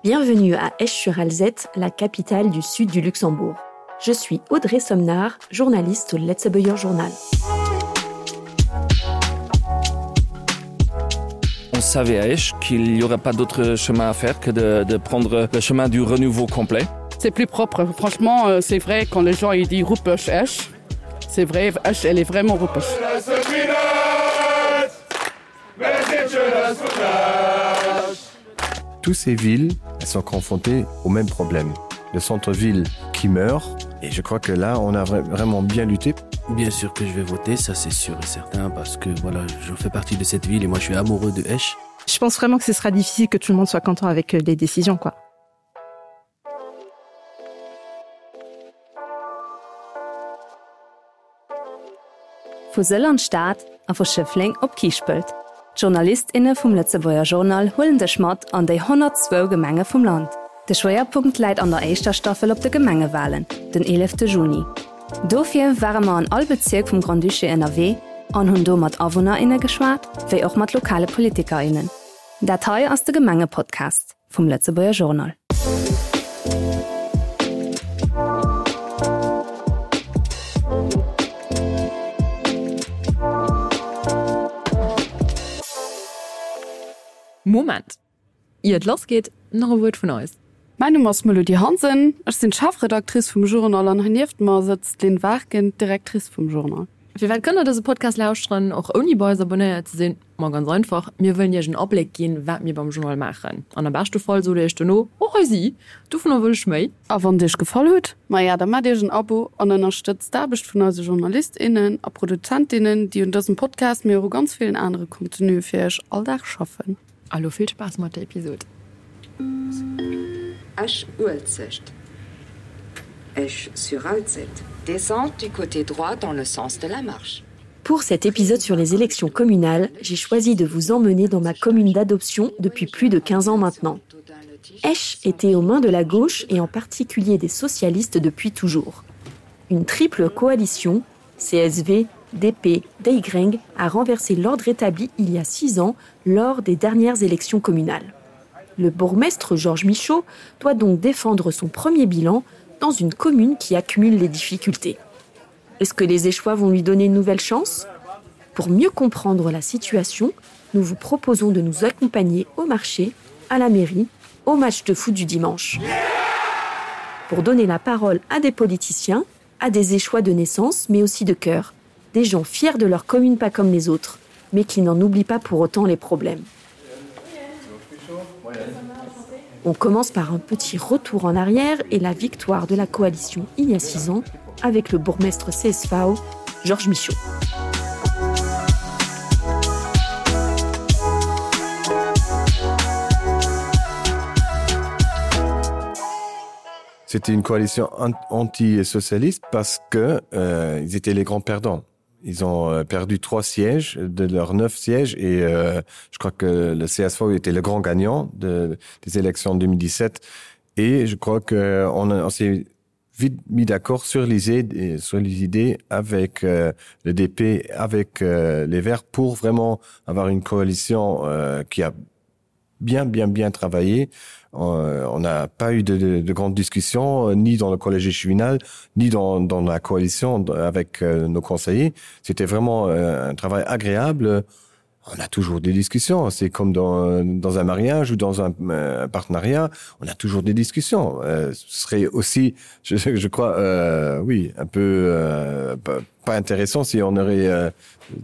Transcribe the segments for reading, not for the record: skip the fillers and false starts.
Bienvenue à Esch-sur-Alzette, la capitale du sud du Luxembourg. Je suis Audrey Somnard, journaliste au Letzebauer Journal. On savait à Esch qu'il n'y aurait pas d'autre chemin à faire que de prendre le chemin du renouveau complet. C'est plus propre. Franchement, c'est vrai, quand les gens ils disent Ruppech Esch, c'est vrai, Esch, elle est vraiment Ruppech. Toutes ces villes, elles sont confrontées au même problème. Le centre-ville qui meurt, et je crois que là, on a vraiment bien lutté. Bien sûr que je vais voter, ça c'est sûr et certain, parce que voilà, je fais partie de cette ville et moi je suis amoureux de Esch. Je pense vraiment que ce sera difficile que tout le monde soit content avec les décisions, quoi. Von Søllerstadt a von Schöffling op Kiespelt. JournalistInnen vom Letzebauer Journal holen de Schmat an die 102 Gemenge vom Land. Der Schwerpunkt liegt an der ersten Staffel auf die Gemengewahlen, den 11. Juni. Dafür waren wir an all Bezirk vom Grand Duché NRW und haben hier mit AnwohnerInnen geschwätzt, wie auch mit lokalen PolitikerInnen. Datei aus der Gemenge-Podcast vom Letzebauer Journal. Moment. Ihr losgeht, noch ein Wort von uns. Mein Name ist Melodie Hansen, ich bin Chefredaktrice vom Journal und neben mir sitzt Lynn Wagen, Direktrice vom Journal. Wir können diesen Podcast lauschen, auch ohne bei uns abonniert zu sein. Mal ganz einfach, wir wollen ja einen Abblick gehen, was wir beim Journal machen. Und am besten Fall so, dass du noch, sie, du von will ich mehr. Aber wenn dich gefallen hat, dann mach dir ein Abo und unterstützt da bist von unseren JournalistInnen und ProduzentInnen, die in diesem Podcast mir auch ganz vielen anderen Contenu für euch alltag schaffen. Also viel Spaß mit der Episode. Esch-Uelzest. Esch-sur-Alzette. Descente du côté droit dans le sens de la marche. Pour cet épisode sur les élections communales, j'ai choisi de vous emmener dans ma commune d'adoption depuis plus de 15 ans maintenant. Esch était aux mains de la gauche et en particulier des socialistes depuis toujours. Une triple coalition, CSV, DP, DY, a renversé l'ordre établi il y a 6 ans lors des dernières élections communales. Le bourgmestre Georges Michaud doit donc défendre son premier bilan dans une commune qui accumule les difficultés. Est-ce que les Échois vont lui donner une nouvelle chance ? Pour mieux comprendre la situation, nous vous proposons de nous accompagner au marché, à la mairie, au match de foot du dimanche. Pour donner la parole à des politiciens, à des Échois de naissance, mais aussi de cœur, des gens fiers de leur commune pas comme les autres, mais qui n'en oublient pas pour autant les problèmes. On commence par un petit retour en arrière et la victoire de la coalition il y a 6 ans avec le bourgmestre CSV, Georges Michaud. C'était une coalition anti-socialiste parce que ils étaient les grands perdants. Ils ont perdu 3 sièges de leurs 9 sièges et je crois que le CSV était le grand gagnant des élections de 2017. Et je crois qu'on s'est vite mis d'accord sur les idées avec le DP, avec les Verts pour vraiment avoir une coalition qui a bien travaillé. On n'a pas eu de grandes discussions, ni dans le collège échevinal, ni dans la coalition avec nos conseillers. C'était vraiment un travail agréable. On a toujours des discussions. C'est comme dans un mariage ou dans un partenariat. On a toujours des discussions. Ce serait aussi, je crois, un peu pas intéressant si on aurait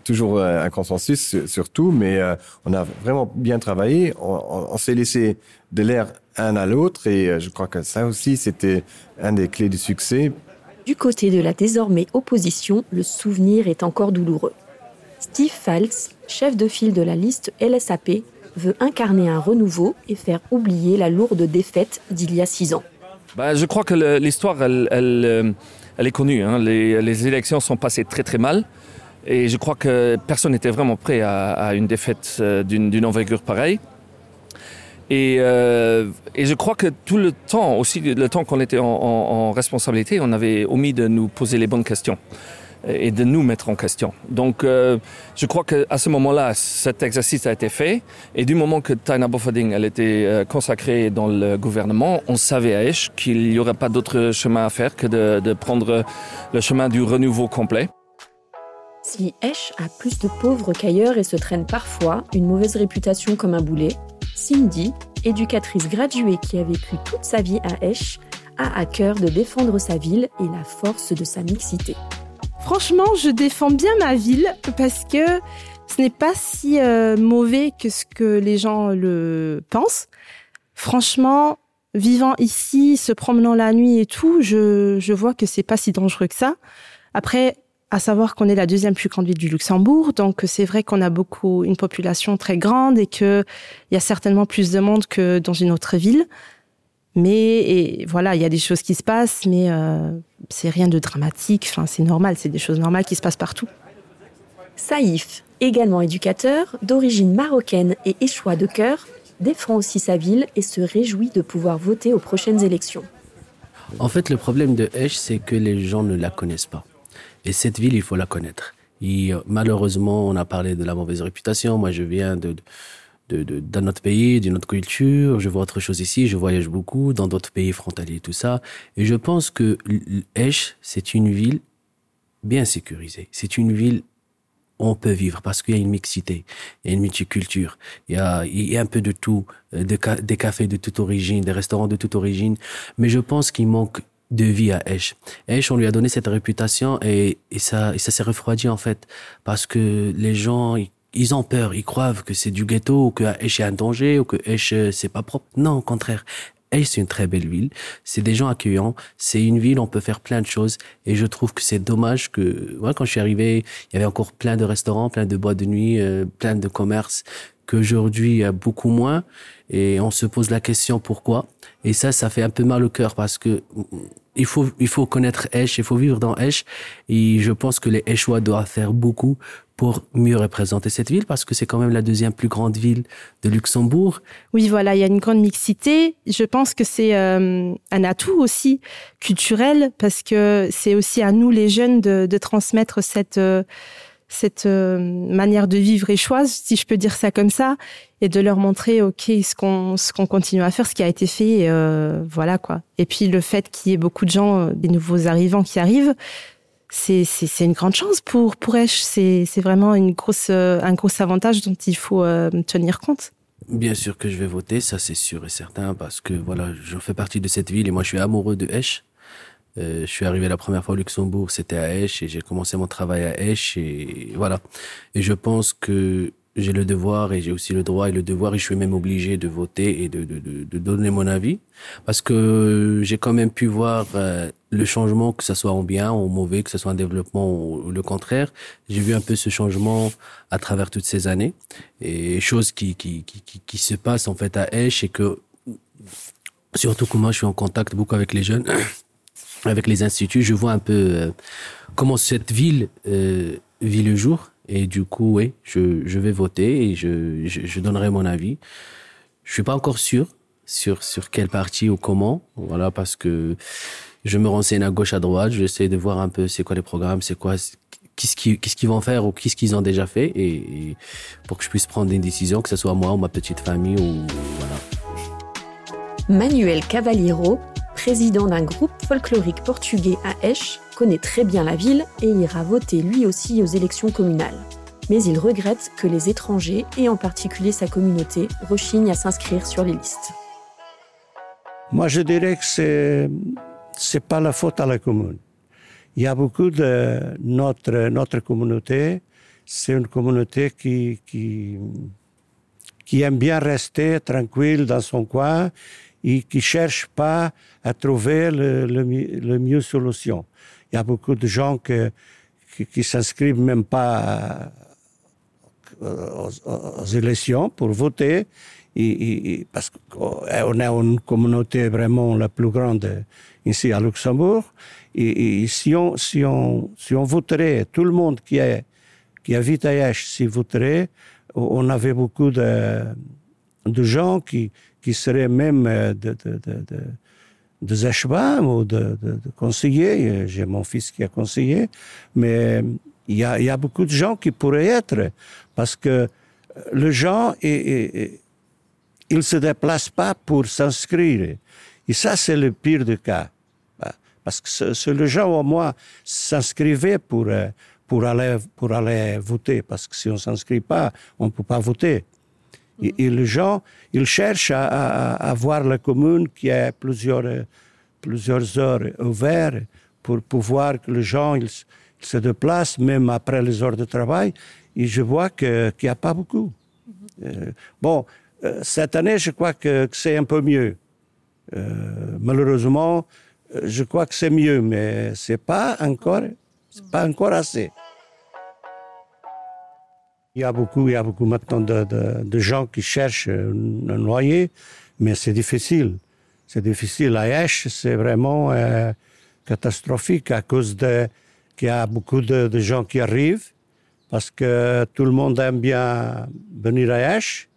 toujours un consensus sur tout. Mais on a vraiment bien travaillé. On s'est laissé de l'air un à l'autre. Et je crois que ça aussi, c'était un des clés du succès. Du côté de la désormais opposition, le souvenir est encore douloureux. Steve Falz, chef de file de la liste LSAP, veut incarner un renouveau et faire oublier la lourde défaite d'il y a 6 ans. Je crois que l'histoire, elle est connue. Hein. Les élections sont passées très mal. Et je crois que personne n'était vraiment prêt à une défaite d'une envergure pareille. Et je crois que tout le temps, aussi le temps qu'on était en responsabilité, on avait omis de nous poser les bonnes questions. et de nous mettre en question. Donc, je crois qu'à ce moment-là, cet exercice a été fait. Et du moment que Taina Bofading elle était consacrée dans le gouvernement, on savait à Esch qu'il n'y aurait pas d'autre chemin à faire que de prendre le chemin du renouveau complet. Si Esch a plus de pauvres qu'ailleurs et se traîne parfois une mauvaise réputation comme un boulet, Cindy, éducatrice graduée qui a vécu toute sa vie à Esch, a à cœur de défendre sa ville et la force de sa mixité. Franchement, je défends bien ma ville parce que ce n'est pas si mauvais que ce que les gens le pensent. Franchement, vivant ici, se promenant la nuit et tout, je vois que c'est pas si dangereux que ça. Après, à savoir qu'on est la deuxième plus grande ville du Luxembourg, donc c'est vrai qu'on a une population très grande et qu'il y a certainement plus de monde que dans une autre ville. Mais voilà, il y a des choses qui se passent, mais c'est rien de dramatique. Enfin, c'est normal, c'est des choses normales qui se passent partout. Saïf, également éducateur, d'origine marocaine et échois de cœur, défend aussi sa ville et se réjouit de pouvoir voter aux prochaines élections. En fait, le problème de Esch, c'est que les gens ne la connaissent pas. Et cette ville, il faut la connaître. Et malheureusement, on a parlé de la mauvaise réputation. Moi, je viens d'un autre pays, d'une autre culture. Je vois autre chose ici. Je voyage beaucoup dans d'autres pays frontaliers, tout ça. Et je pense que Esch, c'est une ville bien sécurisée. C'est une ville où on peut vivre parce qu'il y a une mixité, il y a une multiculture. Il y a un peu de tout, des cafés de toute origine, des restaurants de toute origine. Mais je pense qu'il manque de vie à Esch. Esch, on lui a donné cette réputation et ça s'est refroidi en fait parce que les gens ils ont peur, ils croient que c'est du ghetto ou que Esch est un danger ou que Esch c'est pas propre. Non, au contraire. Esch, c'est une très belle ville. C'est des gens accueillants. C'est une ville où on peut faire plein de choses. Et je trouve que c'est dommage que, moi, quand je suis arrivé, il y avait encore plein de restaurants, plein de boîtes de nuit, plein de commerces, qu'aujourd'hui, il y a beaucoup moins. Et on se pose la question pourquoi. Et ça fait un peu mal au cœur parce que il faut connaître Esch, il faut vivre dans Esch. Et je pense que les Eschois doivent faire beaucoup pour mieux représenter cette ville parce que c'est quand même la deuxième plus grande ville de Luxembourg. Oui, voilà, il y a une grande mixité. Je pense que c'est un atout aussi culturel parce que c'est aussi à nous les jeunes de transmettre cette manière de vivre échoise, si je peux dire ça comme ça, et de leur montrer ce qu'on continue à faire, ce qui a été fait, voilà quoi. Et puis le fait qu'il y ait beaucoup de gens, des nouveaux arrivants qui arrivent, c'est une grande chance pour Esch. C'est vraiment un gros avantage dont il faut tenir compte. Bien sûr que je vais voter, ça c'est sûr et certain, parce que voilà, je fais partie de cette ville et moi je suis amoureux de Esch. Je suis arrivé la première fois au Luxembourg, c'était à Esch et j'ai commencé mon travail à Esch et voilà. Et je pense que j'ai le devoir et j'ai aussi le droit et le devoir et je suis même obligé de voter et de donner mon avis parce que j'ai quand même pu voir le changement, que ce soit en bien ou en mauvais, que ce soit un développement ou le contraire. J'ai vu un peu ce changement à travers toutes ces années et choses qui se passent en fait à Esch et que surtout que moi je suis en contact beaucoup avec les jeunes. Avec les instituts, je vois un peu comment cette ville vit le jour. Et du coup, oui, je vais voter et je donnerai mon avis. Je suis pas encore sûr sur quel parti ou comment. Voilà, parce que je me renseigne à gauche, à droite. J'essaie de voir un peu c'est quoi les programmes, c'est quoi, qu'est-ce qu'ils vont faire ou qu'est-ce qu'ils ont déjà fait. Et pour que je puisse prendre une décision, que ce soit moi ou ma petite famille ou voilà. Manuel Cavaliero, président d'un groupe folklorique portugais à Esch, connaît très bien la ville et ira voter lui aussi aux élections communales. Mais il regrette que les étrangers, et en particulier sa communauté, rechignent à s'inscrire sur les listes. Moi, je dirais que c'est pas la faute à la commune. Il y a beaucoup de notre communauté, c'est une communauté qui aime bien rester tranquille dans son coin et qui cherche pas à trouver le mieux solution. Il y a beaucoup de gens qui s'inscrivent même pas aux élections pour voter parce qu'on est une communauté vraiment la plus grande ici à Luxembourg et si on voterait, tout le monde qui habite à Esch, s'y voterait, on avait beaucoup de gens qui seraient même des échevins ou de conseillers. J'ai mon fils qui a conseillé, mais il y a beaucoup de gens qui pourraient être, parce que les gens, ils ne se déplacent pas pour s'inscrire. Et ça, c'est le pire des cas. Parce que les gens, au moins, s'inscrivaient pour aller voter. Parce que si on ne s'inscrit pas, on ne peut pas voter. Et les gens, ils cherchent à voir la commune qui a plusieurs heures ouvertes pour pouvoir que les gens ils se déplacent, même après les heures de travail. Et je vois qu'il n'y a pas beaucoup. Cette année, je crois que c'est un peu mieux. Malheureusement, je crois que c'est mieux, mais c'est pas encore assez. Il y a beaucoup maintenant de gens qui cherchent un loyer, mais c'est difficile. C'est difficile. À Esch, c'est vraiment catastrophique à cause qu'il y a beaucoup de gens qui arrivent, parce que tout le monde aime bien venir à Esch.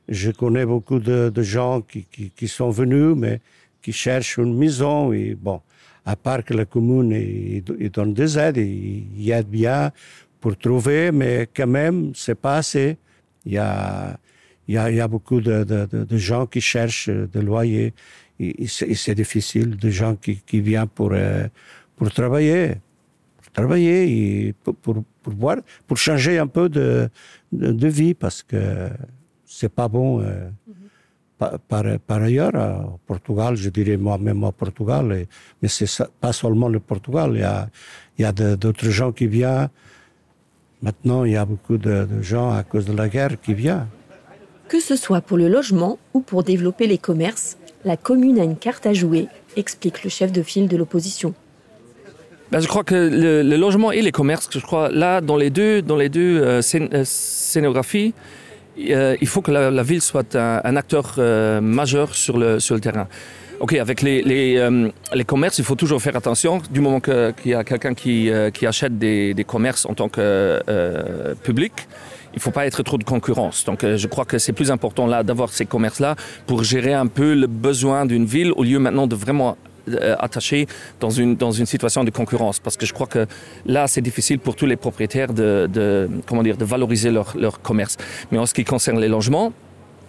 Je connais beaucoup de gens qui sont venus, mais qui cherchent une maison. Et bon, à part que la commune il donne des aides, il aide bien pour trouver, mais quand même, c'est pas assez. Il y a beaucoup de gens qui cherchent des loyers. Et c'est difficile, de gens qui viennent pour travailler. Et pour changer un peu de vie, parce que c'est pas bon. Par ailleurs, au Portugal, je dirais moi-même au Portugal, mais c'est pas seulement le Portugal, il y a d'autres gens qui viennent. Maintenant, il y a beaucoup de gens à cause de la guerre qui viennent. Que ce soit pour le logement ou pour développer les commerces, la commune a une carte à jouer, explique le chef de file de l'opposition. Je crois que le logement et les commerces, je crois, là, dans les deux scénographies, il faut que la ville soit un acteur majeur sur le terrain. Ok, avec les commerces, il faut toujours faire attention. Du moment qu'il y a quelqu'un qui achète des commerces en tant que public, il ne faut pas être trop de concurrence. Donc je crois que c'est plus important là d'avoir ces commerces-là pour gérer un peu le besoin d'une ville, au lieu maintenant de vraiment attaché dans une situation de concurrence, parce que je crois que là c'est difficile pour tous les propriétaires de valoriser leur commerce. Mais en ce qui concerne les logements,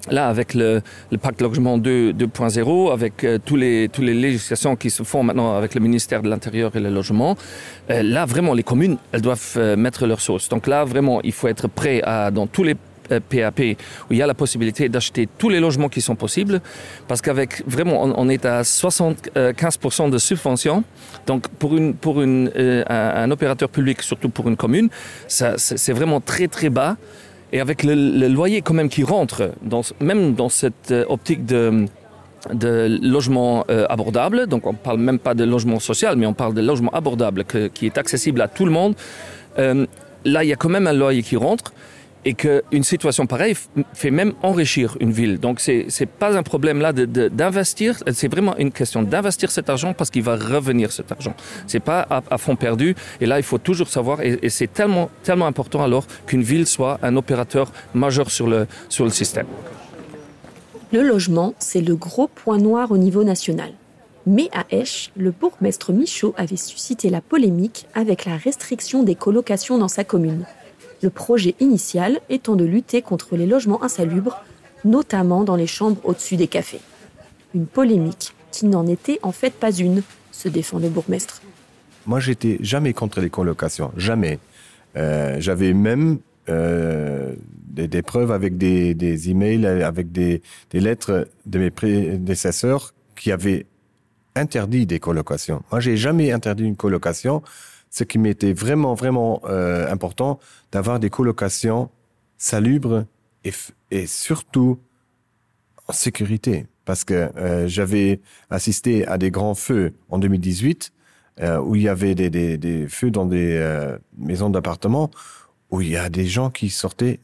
là avec le pacte logement 2.0, avec tous les législations qui se font maintenant avec le ministère de l'Intérieur et le logement, là vraiment les communes elles doivent mettre leur sauce. Donc là vraiment il faut être prêt dans tous les PAP où il y a la possibilité d'acheter tous les logements qui sont possibles, parce qu'avec vraiment on est à 75% de subvention. Donc pour un opérateur public, surtout pour une commune, c'est vraiment très très bas. Et avec le loyer quand même qui rentre même dans cette optique de logement abordable, donc on ne parle même pas de logement social, mais on parle de logement abordable qui est accessible à tout le monde, là il y a quand même un loyer qui rentre. Et qu'une situation pareille fait même enrichir une ville. Donc c'est pas un problème là d'investir, c'est vraiment une question d'investir cet argent, parce qu'il va revenir cet argent. C'est pas à fond perdu. Et là il faut toujours savoir, et c'est tellement important alors qu'une ville soit un opérateur majeur sur le système. Le logement, c'est le gros point noir au niveau national. Mais à Esch, le bourgmestre Michaud avait suscité la polémique avec la restriction des colocations dans sa commune. Le projet initial étant de lutter contre les logements insalubres, notamment dans les chambres au-dessus des cafés. Une polémique qui n'en était en fait pas une, se défend le bourgmestre. Moi, j'étais jamais contre les colocations, jamais. J'avais même des preuves avec des emails, avec des lettres de mes prédécesseurs qui avaient interdit des colocations. Moi, j'ai jamais interdit une colocation. Ce qui m'était vraiment important, d'avoir des colocations salubres et surtout en sécurité. Parce que j'avais assisté à des grands feux en 2018, où il y avait des feux dans des maisons d'appartements, où il y a des gens qui sortaient,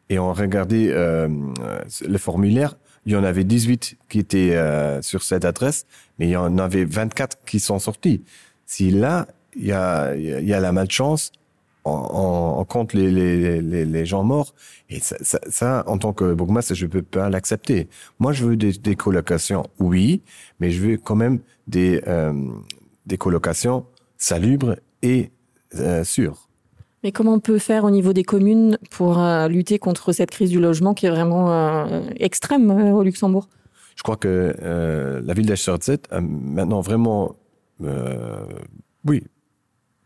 et on regardait le formulaire. Il y en avait 18 qui étaient sur cette adresse, mais il y en avait 24 qui sont sortis. Si là, il y a la malchance, on compte les gens morts. Et ça, en tant que bourgmestre, je peux pas l'accepter. Moi, je veux des colocations, oui, mais je veux quand même des colocations salubres et sûres. Mais comment on peut faire au niveau des communes pour lutter contre cette crise du logement qui est vraiment extrême au Luxembourg? Je crois que la ville d'Esch-sur-Alzette a maintenant vraiment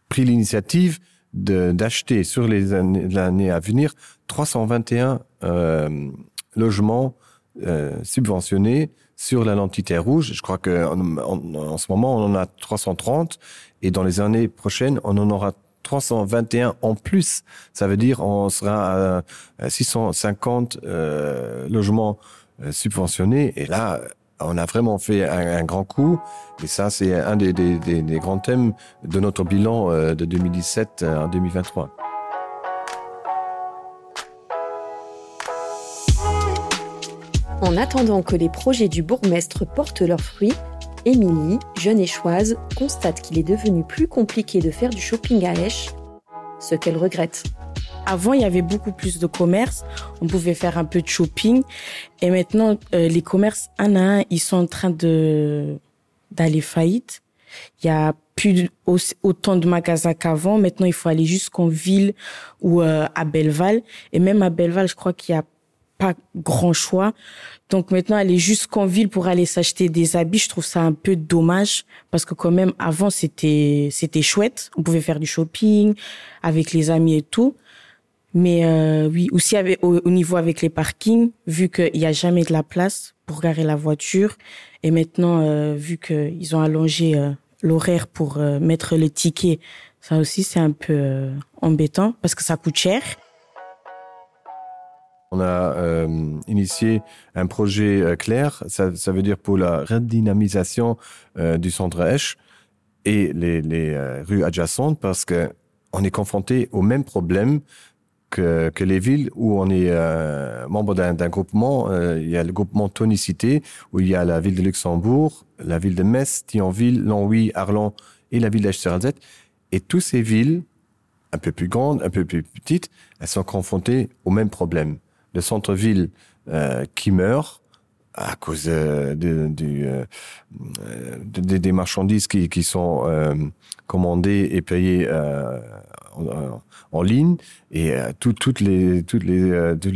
pris l'initiative d'acheter sur l'année à venir 321 logements subventionnés sur la l'entité rouge. Je crois qu'en ce moment, on en a 330 et dans les années prochaines, on en aura 321 en plus. Ça veut dire on sera à 650 logements subventionnés. Et là, on a vraiment fait un grand coup. Et ça, c'est un des grands thèmes de notre bilan de 2017 en 2023. En attendant que les projets du bourgmestre portent leurs fruits, Émilie, jeune échoise, constate qu'il est devenu plus compliqué de faire du shopping à Esch, ce qu'elle regrette. Avant, il y avait beaucoup plus de commerces. On pouvait faire un peu de shopping. Et maintenant, les commerces, un à un, ils sont en train d'aller faillite. Il y a plus autant de magasins qu'avant. Maintenant, il faut aller jusqu'en ville ou à Belleval. Et même à Belleval, je crois qu'il y a pas grand choix. Donc maintenant, aller jusqu'en ville pour aller s'acheter des habits, je trouve ça un peu dommage parce que quand même, avant, c'était chouette. On pouvait faire du shopping avec les amis et tout. Mais oui, aussi au niveau avec les parkings, vu qu'il n'y a jamais de la place pour garer la voiture. Et maintenant, vu qu'ils ont allongé l'horaire pour mettre le ticket, ça aussi, c'est un peu embêtant parce que ça coûte cher. On a initié un projet clair, ça veut dire pour la redynamisation du centre Esch et les rues adjacentes parce que on est confronté au même problème que les villes où on est membre d'un groupement. Il y a le groupement Tonicité où il y a la ville de Luxembourg, la ville de Metz, Thionville, Longwy, Arlon et la ville d'Esch-sur-Alzette. Et toutes ces villes, un peu plus grandes, un peu plus petites, elles sont confrontées au même problème. Le centre-ville qui meurt à cause des marchandises qui sont commandées et payées en ligne et toutes les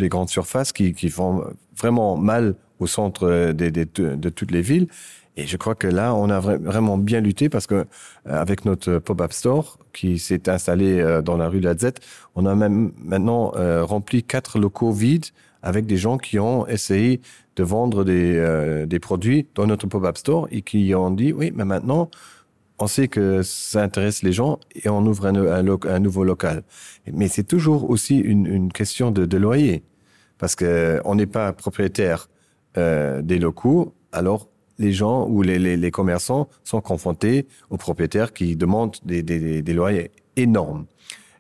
grandes surfaces qui font vraiment mal au centre de toutes les villes. Et je crois que là, on a vraiment bien lutté parce que avec notre pop-up store qui s'est installé dans la rue de l'Alzette, on a même maintenant rempli 4 locaux vides avec des gens qui ont essayé de vendre des produits dans notre pop-up store et qui ont dit oui, mais maintenant on sait que ça intéresse les gens et on ouvre un nouveau local. Mais c'est toujours aussi une question de loyer parce que on n'est pas propriétaire des locaux, alors les gens ou les commerçants sont confrontés aux propriétaires qui demandent des loyers énormes.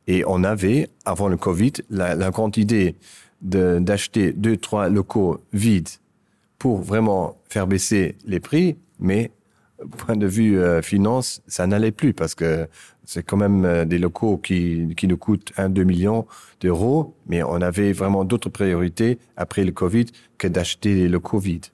Et on avait, avant le Covid, la grande idée d'acheter 2-3 locaux vides pour vraiment faire baisser les prix, mais point de vue finance, ça n'allait plus parce que c'est quand même des locaux qui nous coûtent 1-2 millions d'euros, mais on avait vraiment d'autres priorités après le Covid que d'acheter les locaux vides.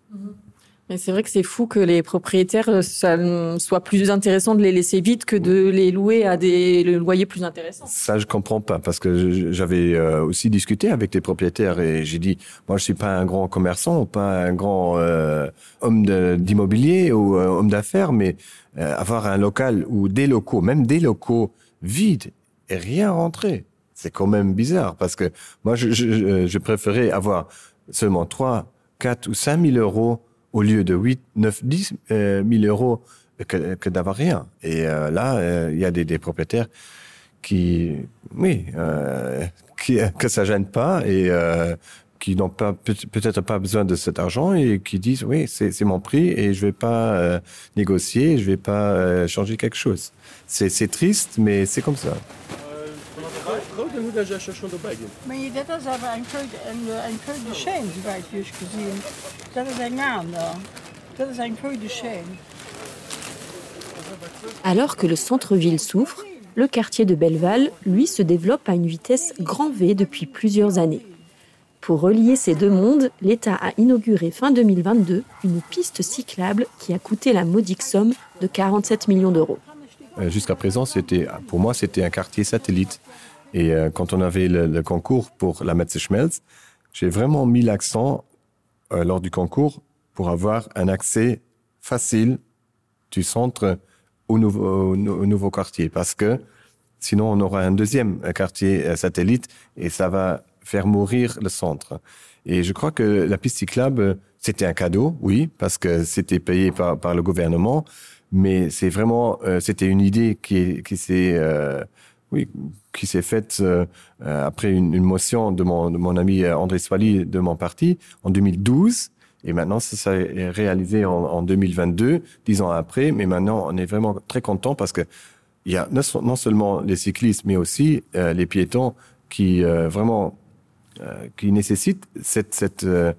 Mais c'est vrai que c'est fou que les propriétaires, ça soit plus intéressant de les laisser vides que de les louer à des loyers plus intéressants. Ça, je comprends pas, parce que j'avais aussi discuté avec des propriétaires et j'ai dit, moi, je suis pas un grand commerçant, pas un grand homme d'immobilier ou homme d'affaires, mais avoir un local ou des locaux, même des locaux vides et rien rentrer, c'est quand même bizarre, parce que moi, je préférais avoir seulement 3, 4 ou 5 000 euros au lieu de 8, 9, 10 000 euros que d'avoir rien. Et là, il y a des propriétaires qui, que ça gêne pas et qui n'ont pas peut-être pas besoin de cet argent et qui disent oui, c'est mon prix et je vais pas négocier, je vais pas changer quelque chose. C'est triste, mais c'est comme ça. Maar dat is aber ein Köde Schein, soweit wie ich gesehen. Das ist ein Mann da. Das ist ein Köde Schein. Alors que le centre-ville souffre, Le quartier de Belleval, lui, se développe à une vitesse grand V depuis plusieurs années. Pour relier ces deux mondes, l'État a inauguré fin 2022 une piste cyclable qui a coûté la modique somme de 47 millions d'euros. Jusqu'à présent, pour moi, c'était un quartier satellite. Et quand on avait le concours pour la Metze Schmelz, j'ai vraiment mis l'accent lors du concours pour avoir un accès facile du centre au nouveau quartier. Parce que sinon, on aura un deuxième quartier satellite et ça va faire mourir le centre. Et je crois que la piste cyclable, c'était un cadeau, oui, parce que c'était payé par le gouvernement, mais c'est vraiment, c'était une idée qui s'est faite après une motion de mon ami André Swally de mon parti en 2012. Et maintenant, ça s'est réalisé en 2022, 10 ans après. Mais maintenant, on est vraiment très content parce que il y a non seulement les cyclistes, mais aussi les piétons qui vraiment qui nécessitent ce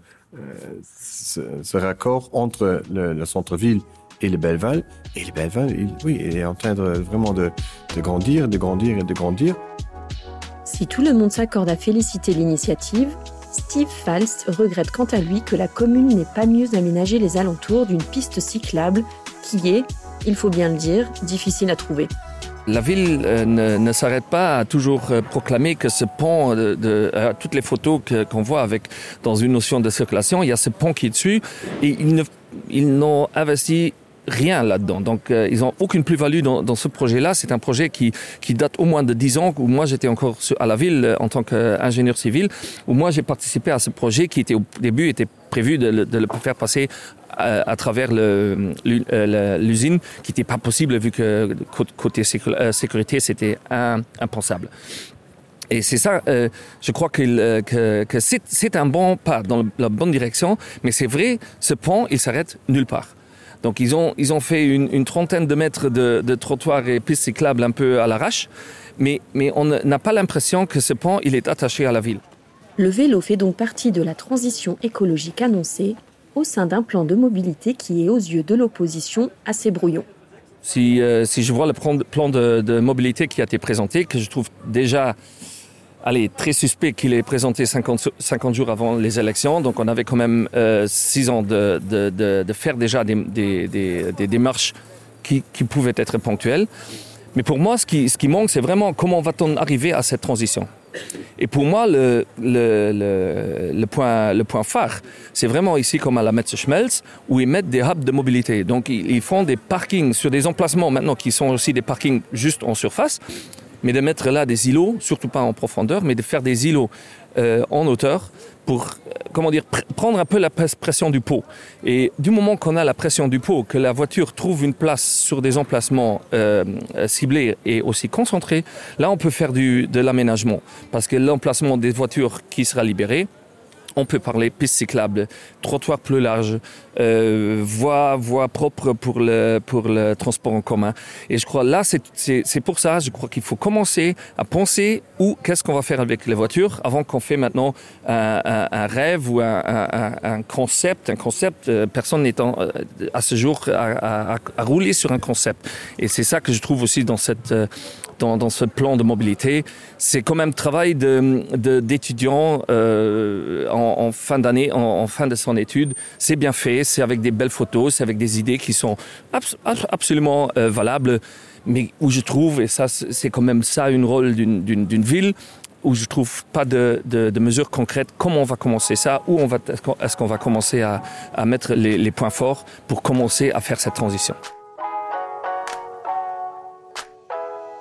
raccord entre le centre-ville et le Belleval. Et le Belleval, il est en train de grandir. Si tout le monde s'accorde à féliciter l'initiative, Steve Falst regrette quant à lui que la commune n'ait pas mieux aménagé les alentours d'une piste cyclable qui est, il faut bien le dire, difficile à trouver. La ville ne s'arrête pas à toujours proclamer que ce pont, toutes les photos qu'on voit dans une notion de circulation, il y a ce pont qui est dessus et ils n'ont investi rien là-dedans. Donc, ils n'ont aucune plus-value dans ce projet-là. C'est un projet qui date au moins de 10 ans, où moi, j'étais encore à la ville en tant qu'ingénieur civil, où moi, j'ai participé à ce projet qui au début était prévu de le faire passer à travers l'usine, qui n'était pas possible vu que côté sécurité, c'était impensable. Et c'est ça, je crois que c'est un bon pas dans la bonne direction, mais c'est vrai, ce pont, il s'arrête nulle part. Donc ils ont fait une trentaine de mètres de trottoirs et pistes cyclables un peu à l'arrache, mais on n'a pas l'impression que ce pont il est attaché à la ville. Le vélo fait donc partie de la transition écologique annoncée au sein d'un plan de mobilité qui est aux yeux de l'opposition assez brouillon. Si je vois le plan de mobilité qui a été présenté, que je trouve déjà très suspect qu'il est présenté 50 jours avant les élections. Donc on avait quand même 6 ans de faire déjà des démarches qui pouvaient être ponctuelles. Mais pour moi, ce qui manque, c'est vraiment comment va-t-on arriver à cette transition. Et pour moi, le point phare, c'est vraiment ici comme à la Metze Schmelz, où ils mettent des hubs de mobilité. Donc ils font des parkings sur des emplacements maintenant qui sont aussi des parkings juste en surface, mais de mettre là des îlots, surtout pas en profondeur, mais de faire des îlots en hauteur pour, prendre un peu la pression du pot. Et du moment qu'on a la pression du pot, que la voiture trouve une place sur des emplacements ciblés et aussi concentrés, là on peut faire de l'aménagement. Parce que l'emplacement des voitures qui sera libéré, on peut parler piste cyclable, trottoir plus large, voie propre pour le transport en commun. Et je crois là, c'est pour ça, je crois qu'il faut commencer à penser qu'est-ce qu'on va faire avec les voitures avant qu'on fait maintenant un rêve ou un concept. Personne n'est à ce jour à rouler sur un concept. Et c'est ça que je trouve aussi dans ce plan de mobilité. C'est quand même travail d'étudiants en fin d'année, en fin de son étude. C'est bien fait, c'est avec des belles photos, c'est avec des idées qui sont absolument valables, mais où je trouve, et ça c'est quand même ça un rôle d'une ville, où je trouve pas de mesures concrètes, comment on va commencer ça, est-ce qu'on va commencer à mettre les points forts pour commencer à faire cette transition.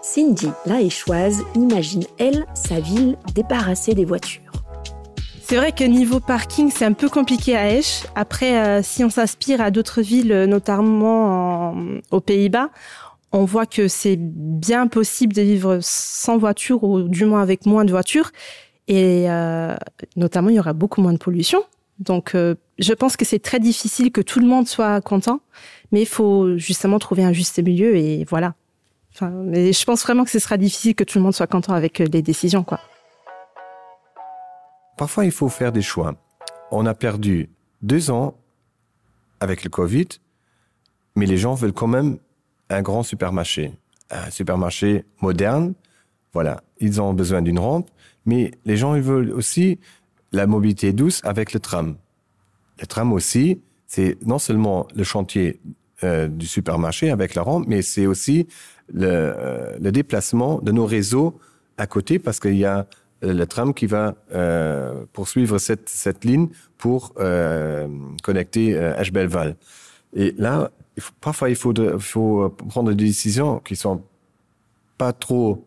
Cindy, la Échoise, imagine, elle, sa ville débarrassée des voitures. C'est vrai que niveau parking, c'est un peu compliqué à Esch. Après, si on s'inspire à d'autres villes, notamment aux Pays-Bas, on voit que c'est bien possible de vivre sans voiture ou du moins avec moins de voitures. Et notamment, il y aura beaucoup moins de pollution. Donc, je pense que c'est très difficile que tout le monde soit content. Mais il faut justement trouver un juste milieu et voilà. Mais je pense vraiment que ce sera difficile que tout le monde soit content avec les décisions, quoi. Parfois, il faut faire des choix. On a perdu 2 ans avec le Covid, mais les gens veulent quand même un grand supermarché, un supermarché moderne. Voilà, ils ont besoin d'une rampe, mais les gens ils veulent aussi la mobilité douce avec le tram. Le tram aussi, c'est non seulement le chantier du supermarché avec la rampe, mais c'est aussi le déplacement de nos réseaux à côté, parce qu'il y a le tram qui va poursuivre cette ligne pour connecter Esch-Belval. Et là, parfois, il faut prendre des décisions qui sont pas trop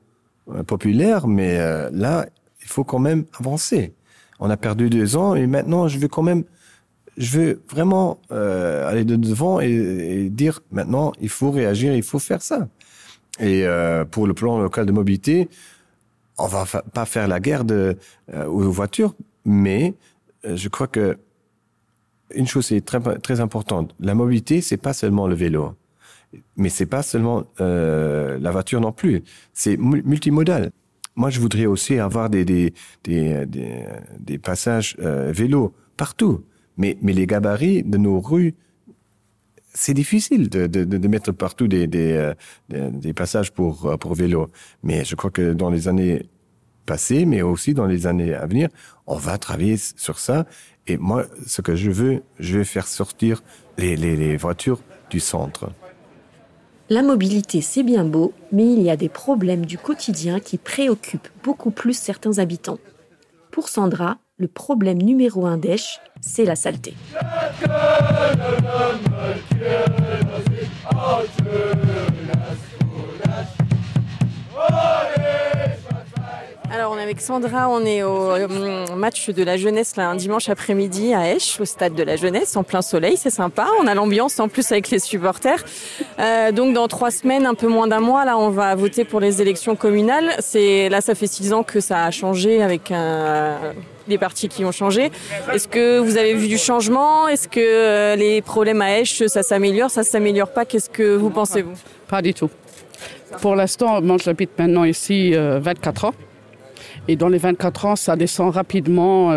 populaires, mais là, il faut quand même avancer. On a perdu 2 ans et maintenant, je veux vraiment aller de devant et dire maintenant, il faut réagir, il faut faire ça. Et pour le plan local de mobilité, on va pas faire la guerre aux voitures, mais je crois que une chose est très, très importante. La mobilité, c'est pas seulement le vélo, mais c'est pas seulement la voiture non plus. C'est multimodal. Moi, je voudrais aussi avoir des passages vélo partout. Mais les gabarits de nos rues, c'est difficile de mettre partout des passages pour vélo. Mais je crois que dans les années passées, mais aussi dans les années à venir, on va travailler sur ça. Et moi, ce que je veux faire sortir les voitures du centre. La mobilité, c'est bien beau, mais il y a des problèmes du quotidien qui préoccupent beaucoup plus certains habitants. Pour Sandra, le problème numéro 1 d'Esch, c'est la saleté. Alors on est avec Sandra, on est au match de la jeunesse là, un dimanche après-midi à Esch, au stade de la jeunesse, en plein soleil, c'est sympa. On a l'ambiance en plus avec les supporters. Donc dans 3 semaines, un peu moins d'un mois, là on va voter pour les élections communales. Là ça fait 6 ans que ça a changé avec les partis qui ont changé. Est-ce que vous avez vu du changement? Est-ce que les problèmes à Esch, ça s'améliore pas? Qu'est-ce que vous pensez vous? Pas du tout. Pour l'instant, moi j'habite maintenant ici 24 ans. Et dans les 24 ans, ça descend rapidement.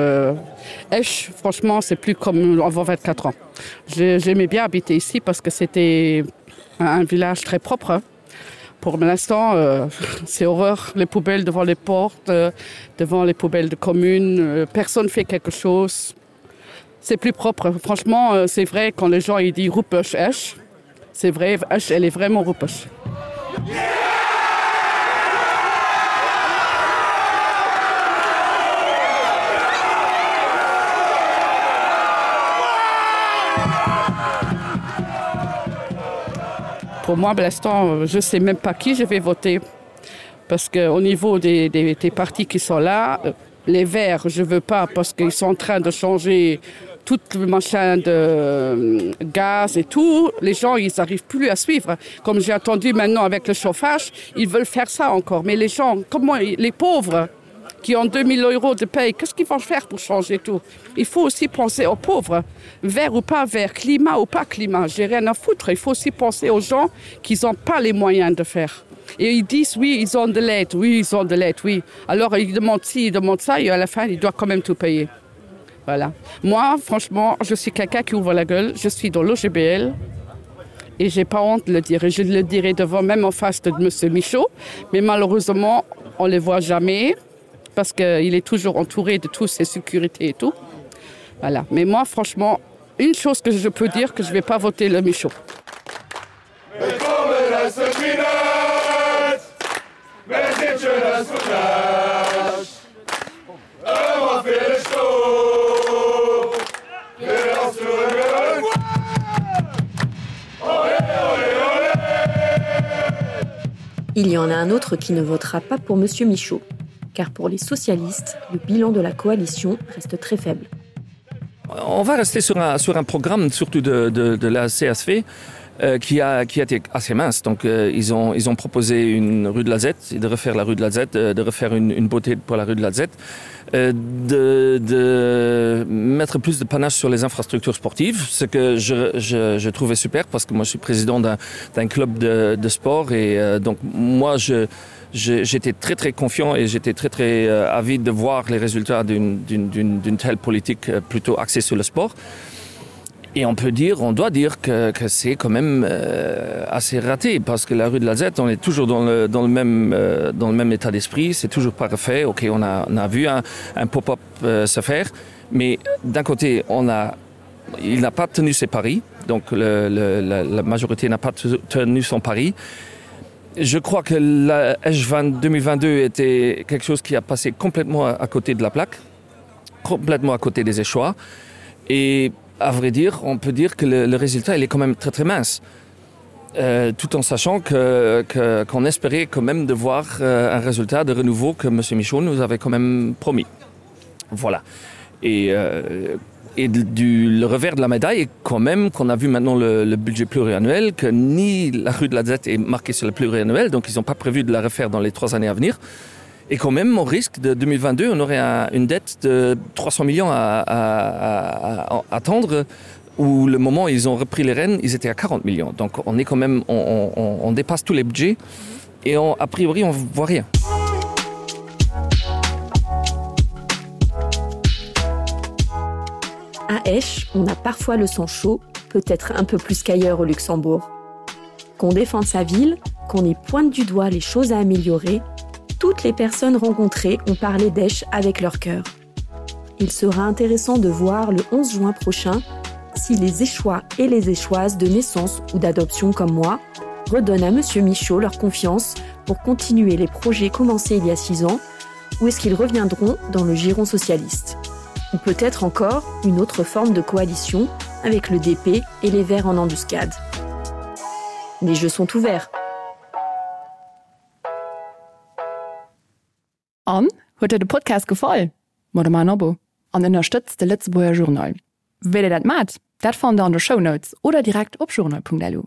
Esch, franchement, c'est plus comme avant 24 ans. J'aimais bien habiter ici parce que c'était un village très propre. Pour l'instant, c'est horreur. Les poubelles devant les portes, devant les poubelles de communes. Personne ne fait quelque chose. C'est plus propre. Franchement, c'est vrai quand les gens ils disent « Ruppech Esch », c'est vrai, Esch, elle est vraiment Ruppech. Pour moi, pour l'instant, je ne sais même pas qui je vais voter. Parce qu'au niveau des partis qui sont là, les Verts, je ne veux pas parce qu'ils sont en train de changer tout le machin de gaz et tout. Les gens, ils n'arrivent plus à suivre. Comme j'ai entendu maintenant avec le chauffage, ils veulent faire ça encore. Mais les gens, comment les pauvres qui ont 2 000 € de paye, qu'est-ce qu'ils vont faire pour changer tout? Il faut aussi penser aux pauvres, vert ou pas vert, climat ou pas climat, j'ai rien à foutre. Il faut aussi penser aux gens qui n'ont pas les moyens de faire. Et ils disent, oui, ils ont de l'aide, oui, ils ont de l'aide, oui. Alors ils demandent ci, ils demandent ça, et à la fin, ils doivent quand même tout payer. Voilà. Moi, franchement, je suis quelqu'un qui ouvre la gueule, je suis dans l'OGBL, et j'ai pas honte de le dire. Et je le dirai devant, même en face de M. Michaud, mais malheureusement, on ne les voit jamais. Parce qu'il est toujours entouré de toutes ses sécurités et tout. Voilà. Mais moi, franchement, une chose que je peux dire, que je ne vais pas voter le Michaud. Il y en a un autre qui ne votera pas pour M. Michaud. Car pour les socialistes, le bilan de la coalition reste très faible. On va rester sur un programme, surtout de la CSV, qui a été assez mince. Donc, ils ont proposé une rue de la Z, de refaire la rue de la Z, de refaire une beauté pour la rue de la Z, de mettre plus de panache sur les infrastructures sportives, ce que je trouvais super, parce que moi, je suis président d'un club de sport, et donc, moi, j'étais très très confiant et j'étais très très avide de voir les résultats d'une telle politique plutôt axée sur le sport. Et on doit dire que c'est quand même assez raté parce que la rue de la Zette, on est toujours dans le même état d'esprit, c'est toujours pas refait. Ok, on a vu un pop-up se faire, mais d'un côté, il n'a pas tenu ses paris, donc la majorité n'a pas tenu son pari. Je crois que la Esch 2022 était quelque chose qui a passé complètement à côté de la plaque, complètement à côté des échois. Et à vrai dire, on peut dire que le résultat il est quand même très très mince. Tout en sachant qu'on espérait quand même de voir un résultat de renouveau que M. Michaud nous avait quand même promis. Voilà. Et le revers de la médaille est quand même qu'on a vu maintenant le budget pluriannuel, que ni la rue de la Zette est marquée sur le pluriannuel, donc ils n'ont pas prévu de la refaire dans les 3 années à venir. Et quand même, au risque de 2022, on aurait une dette de 300 millions à attendre, où le moment où ils ont repris les rênes, ils étaient à 40 millions. Donc on est quand même, on dépasse tous les budgets et a priori, on ne voit rien. À Esch, on a parfois le sang chaud, peut-être un peu plus qu'ailleurs au Luxembourg. Qu'on défende sa ville, qu'on y pointe du doigt les choses à améliorer, toutes les personnes rencontrées ont parlé d'Esch avec leur cœur. Il sera intéressant de voir le 11 juin prochain si les Échois et les Échoises de naissance ou d'adoption comme moi redonnent à M. Michaud leur confiance pour continuer les projets commencés il y a 6 ans, ou est-ce qu'ils reviendront dans le giron socialiste. Ou peut-être encore une autre forme de coalition avec le DP et les Verts en embuscade. Les jeux sont ouverts. An huet de Podcast gefallen? Mod mein Abo an unterstützt de Lützeburger Journal. Will dat mat? Dat fand an de Shownotes oder direkt op journal.delu.